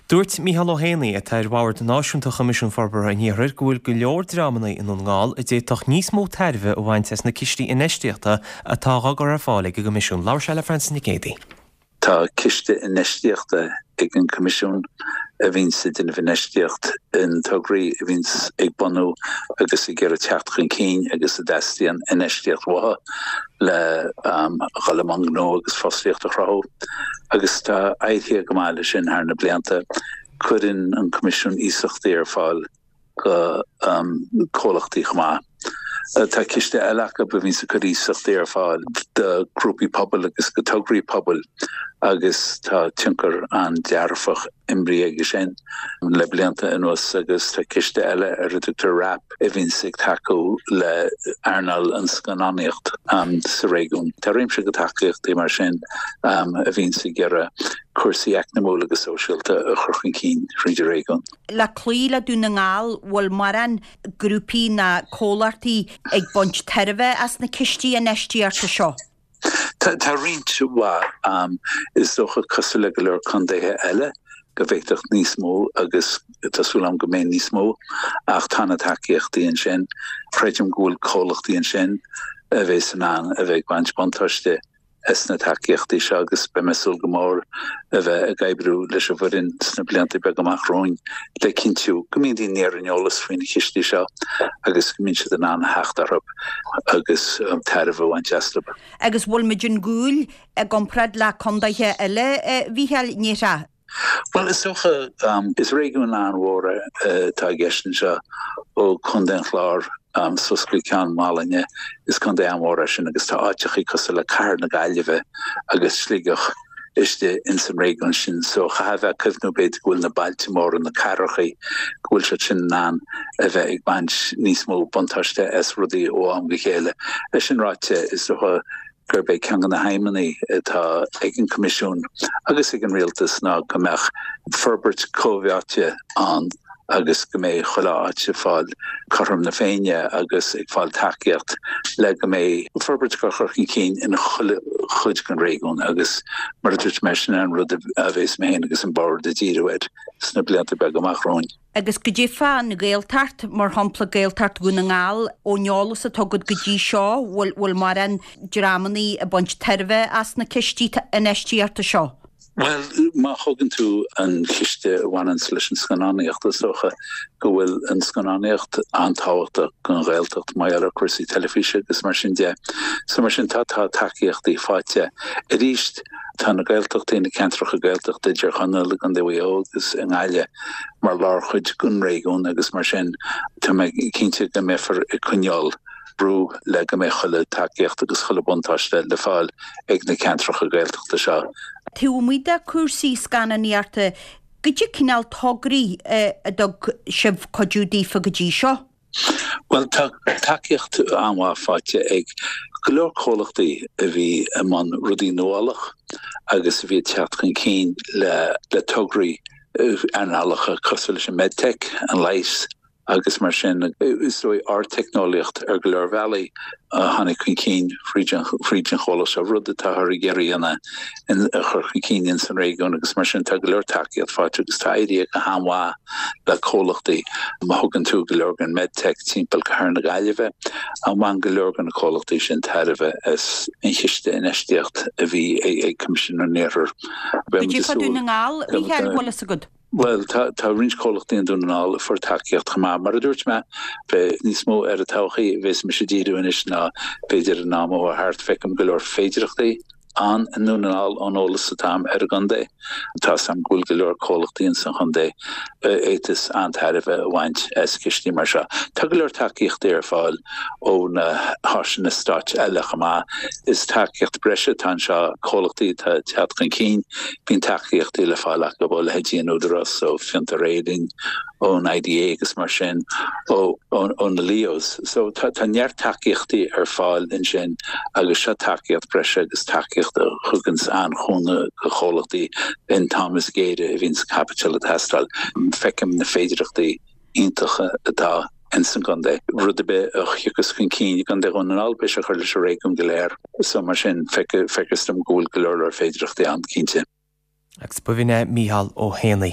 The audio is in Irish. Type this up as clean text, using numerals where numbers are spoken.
Dúirt Mícheál Ó hÉanaí, atá ar Bhord Náisiúnta Choimisiún Forbartha an Iarthair, go bhfuil go leor dreamanna i nDún na nGall a d'fhéadfadh níos mó tairbhe a bhaint as na cistí infheistíochta atá á gcur ar fáil ag an gCoimisiún. Labhair sé le Frances Nic Géadaigh. Tá ciste infheistíochta ag an Coimisiún a bhíonns ag déanamh infheistíocht in tograí a bhíonns ag bunú agus ag iarraidh teacht chun cinn agus a dteastaíonn infheistíocht uathu le dhul i mbun gnó agus fostaíocht a chruthú. Agus tá éirithe go maith leis sin thar na blianta. Cuireann an Coimisiún iasachtaí ar fáil go comhlachtaí chomh maith. Tá ciste eile acu a bhíonns ag cur iasachtaí ar fáil do ghrúpaí pobail agus go tograí pobail agus tá tionchar an-dearfach imrithe aige sin le blianta anuas agus tá ciste eile ar a dtugtar WRAP a bhíonns ag tacú le earnáil an scannánaíocht sa réigiún. Tá réimse de tacaíochtaí mar sin a bhíonns ag iarraidh cúrsaí eacnamúil agus sóisialta a chur chun cinn thríd an réigiún. Le cloí le Dún na nGall, bhfuil mórán grúpaí ná comhlachtaí ag baint tairbhe as na cistí infheistíochta seo? Tá roinnt mhaith. Is dócha, cosúil le go leor contaetha eile, go bhféadfadh níos mó agus tá súil agam go mbeidh níos mó ach tá na tacaíochtaí ansin. Creidim go bhfuil comhlachtaí ansin a bheas in ann a bheith ag baint buntáiste as na tacaíochtaí seo agus beidh mé ag súil go mór a bheith ag oibriú leis an bhfoireann sna blianta beaga amach romhainn le cinntiú go mbíonn daoine ar an eolas faoi na cistí seo agus go mbíonn siad in ann a theacht orthu agus tairbhe a bhaint astu. Agus bhfuil muid an gcúl i gcomparáid le condaetha eile, a Mhícheáil, ndéarfá? Bhuel, is dócha, is réigiún an-mhór atá i gceist anseo, ó Chontae an Chláir suas go Ceann Mhálanna, is contae an-mhór é sin agus tá áiteachaí cosúil le Cathair na Gaillimhe agus Sligeach istigh ins an réigiún sin. So chaithfeá a bheith ag cuimhniú b'fhéidir go bhfuil na bailte móra, na cathrachaí, go bhfuil siad sin in ann a bheith ag baint níos mó buntáiste as rudaí ó am go chéile. É sin ráite, is dócha gurb é ceann de na haidhmeanna atá ag an Coimisiún agus ag an Rialtas ná go mbeadh forbairt comhtháite ann agus go mbeidh chuile áit ag fáil cothrom na Féinne agus ag fáil tacaíocht le go mbeidh forbairt á cur chun cinn in chuile chuid den réigiún agus mar a dúirt mé sin an rud a bheas mé féin agus an Bord ag díriú air sna blianta beaga amach romhainn. Agus goidé fán Ghaeltacht, mar shampla Gaeltacht Dhún na nGall, ón eolas atá agat go dtí seo, bhfuil bhfuil mórán dreamannaí ag baint tairbhe as na cistí infheistíochta seo? Bhuel, má thógann tú an ciste a bhaineanns leis an scannánaíocht, is dócha go bhfuil an scannánaíocht an-tábhachtach don Ghaeltacht mar gheall ar cúrsaí teilifíse agus mar sin de. So mar sin tá tá tacaíochtaí faighte. Arís, tá na Gaeltachtaí, na ceantracha Gaeltachta i dTír Chonaill, i gContae Mhaigh Eo agus i nGaillimh, mar lárchuid den réigiún agus mar sin tá mé cinnte go mbeifear ag coinneáil brú le go mbeidh chuile tacaíocht agus chuile buntáiste le fáil ag na ceantracha Gaeltachta seo. Taobh amuigh de chúrsaí scannánaíochta, goidé cineál tograí a dtug sibh cuidiú daofa go dtí seo? Bhuel, tá tacaíocht an-mhaith faighte ag go leor comhlachtaí a bhí i mbun rudaí nuálach agus a bhí ag teacht chun cinn le tograí earnálacha cosúil leis an medtech, an leigheas agus mar sin. Is dóigh ardteicneolaíocht ar go leor bealaí a tháinig chun cinn fríd an chomhlacht seo, rud atáthar ag iarraidh a dhéanamh a chur chun cinn ins an réigiún agus mar sin tá go leor tacaíocht faighte agus tá éirithe go han-mhaith le comhlachtaí. Má thugann tú go leor den medtech timpeall Cathair na Gaillimhe, bhain go leor de na comhlachtaí sin tairbhe as an chiste infheistíocht a bhí ag Coimisiún an Iarthair. Goidé fá Dún na nGall, a Mhícheáil, bhfuil fhios agat? Bhuel, tá roinnt comhlachtaí i nDún na nGall a fuair tacaíocht chomh maith. Mar a dúirt mé, beidh níos mó ar an todhchaí a bheas mise ag díriú anois ná b'fhéidir an am a chuaigh thart. Feicim go leor féidearthachtaí ann i nDún na nGall ón eolas atá agam ar an gcontae. Tá 'fhios agam go bhfuil go leor comhlachtaí ins an chontae a fhéadfas an-tairbhe a bhaint as cistí mar seo. Tá go leor tacaíochtaí ar fáil ó na háiseanna stáit eile chomh maith. Is tacaíocht breise atá anseo, comhlachtaí atá ag teacht chun cinn, bíonn tacaíochtaí le fáil acu ó leithéidí an Údarás, ó Fiontar Éireann, ón IDA agus mar sin, ó na LEOs. So tá neart tacaíochtaí ar fáil ansin agus seo tacaíocht breise agus tacaíocht a thuganns an-chúnamh do chomhlachtaí in t-am is géire a bhíonns caipiteal ag teastáil. Feicim na féidearthachtaí iontacha atá ins an gcontae. Rud ar bith a thiocfas chun cinn i gContae Dhún na nGall, beidh sé ag cur leis an réigiún go léir. So mar sin, feictear dom go bhfuil go leor leor féidearthachtaí ann, cinnte. Agus b'in é Mícheál Ó hÉanaí.